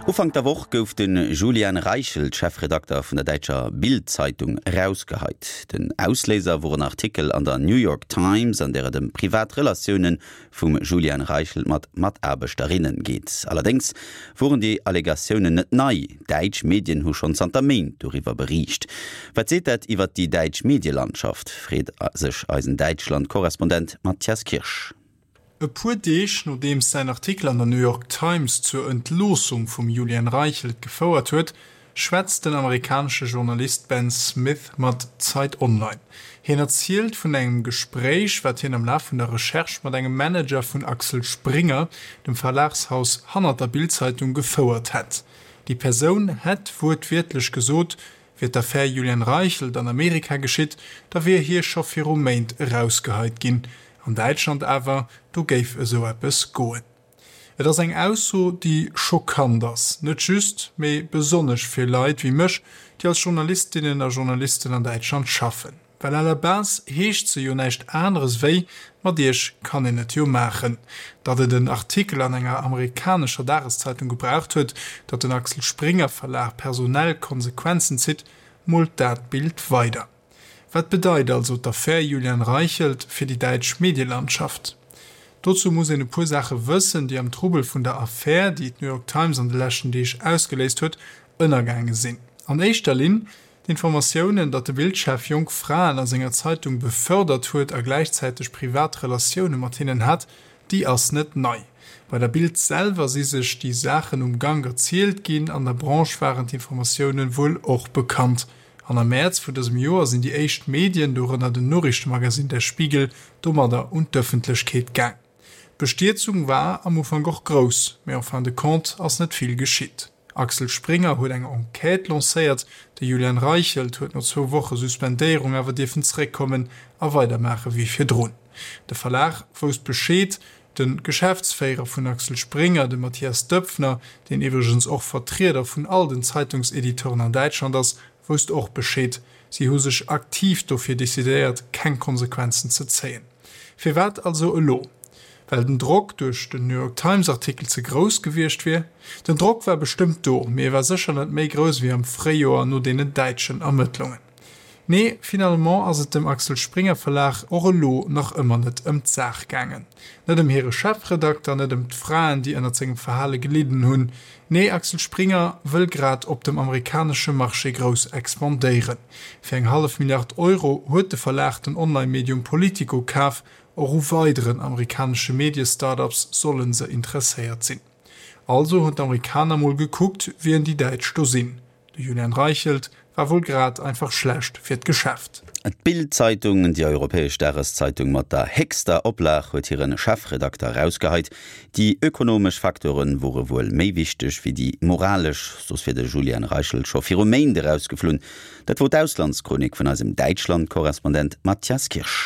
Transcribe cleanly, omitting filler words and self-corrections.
Ufank der Woch gouf de Julian Reichelt, Chefredakter vun der däitscher Bild-Zeitung, erausgeheit. Den Ausléiser wor en Artikel an der New York Times, an där et ëm privat Relatioune vum Julian Reichelt mat Mataarbechterinne geet. Allerdéngs woren déi Allegatiounen net nei, däitsch Medien hu schonn zanter Méint doriwwer beriicht. Wat seet dat iwwer déi däitsch Medielandschaft, freet sech eisen Däitschland-Korrespondent Matthias Kirsch. E puer Deeg nodeems säin Artikel an der New York Times zur Entloossung vum Julian Reichelt gefouert huet, schwätzt den amerikanesche Journalist Ben Smith mat Zeit Online. Hien erzielt vun engem Gespréich, wat hien am Laf vun der Recherche mat engem Manager vun Axel Springer, dem Verlagshaus hannert der Bild-Zeitung, gefouert hätt. Déi Persoun hätt wuertwiertlech gesot, Wier d'Affär Julian Reichelt an Amerika geschitt, da wier hie scho viru Méint erausgeheit ginn. An Däitschland awer, do géif esou eppes goen. Et ass eng Ausso, déi schockant ass, net just, mee besonnesch fir Leit wéi mech, déi als Journalistinnen a Journalisten an Däitschland schaffen. Well à la base heescht se jo näischt aneres wéi, mat iech kann een et jo maachen. Datt et en Artikel an enger amerikanescher Dageszeitung gebraucht huet, datt den Axel Springer Verlag personell Konsequenzen zitt, moolt dat Bild weider. Wat bedeit also d'Affär Julian Reichelt fir déi däitsch Medielandschaft? Dozou muss een e puer Saache wëssen, déi am Trubel vun der Affär, déi d'New York Times an de leschten Deeg ausgeléist huet, ënnergaange sinn. An éischter Linn D'Informatiounen, datt de Bild-Chef jonk Fraen a senger Zeitung befördert huet a gläichzäiteg privat Relatioune mat hinnen hat, déi ass net nei. Bei der Bild selwer si sech déi Saachen um Gank erzielt ginn, an der Branche waren d'Informatioune wuel och bekannt. An am Mäerz vun dësem Joer sinn déi éischt Medien, dorënner den Noriichtemagasinn Der Spiegel, domadder un d'Ëffentlechkeet gaang. D'Bestierzung war am Ufank och grouss, mee en fin de compte ass net vill geschitt. Axel Springer huet eng Enquête lancéiert, de Julian Reichelt huet no zwou Woche Suspendéierung awer dierfen zeréckkommen a weidermaache wéi virdrun. De Verlag wousst Bescheed. De Geschäftsféierer vun Axel Springer, de Mathias Döpfner, deen iwwregens och Vertrieder vun all den Zeitungsediteuren an Däitschland ass, wousst och Bescheed. Si hu sech aktiv dofir decidéiert, keng Konsequenzen ze zéien. Firwat also elo? Well den Drock duerch den New York Times Artikel ze grouss gewiescht wier? Den Drock war bestëmmt do, mee e war sécher net méi grouss ewéi am Fréijoer no deenen däitschen Ermëttlungen. Nee, finalement ass et dem Axel Springer Verlag och elo nach ëmmer net ëm d'Saach gaangen. Net ëm hire Chefredakter, net ëm d'Fraen, déi ënnert sengem Verhale gelidden hunn. Nee, Axel Springer wëll grad op dem amerikanesche Marché grouss expandéieren. Fir eng hallef Milliard Euro huet de Verlag den Online-Medium Politico kaf. Och u weideren amerikanesche Medie-Start-ups solle se interesséiert sinn. Also hunn d'Amerikaner mol gekuckt, wien déi Däitsch do sinn. De Julian Reichelt war wuel grad einfach schlecht fir d'Geschäft. D'Bild-Zeitung, déi europäesch Dageszeitung mat der héchster Oplag, huet hire Chefredakter erausgeheit. Déi ökonomesch Facteure wore wuel méi wichteg wéi déi moralesch, soss wier de Julian Reichelt scho viru Méint erausgeflunn. Dat wor d'Auslandschronik vun eisem Däitschland-Korrespondent Matthias Kirsch.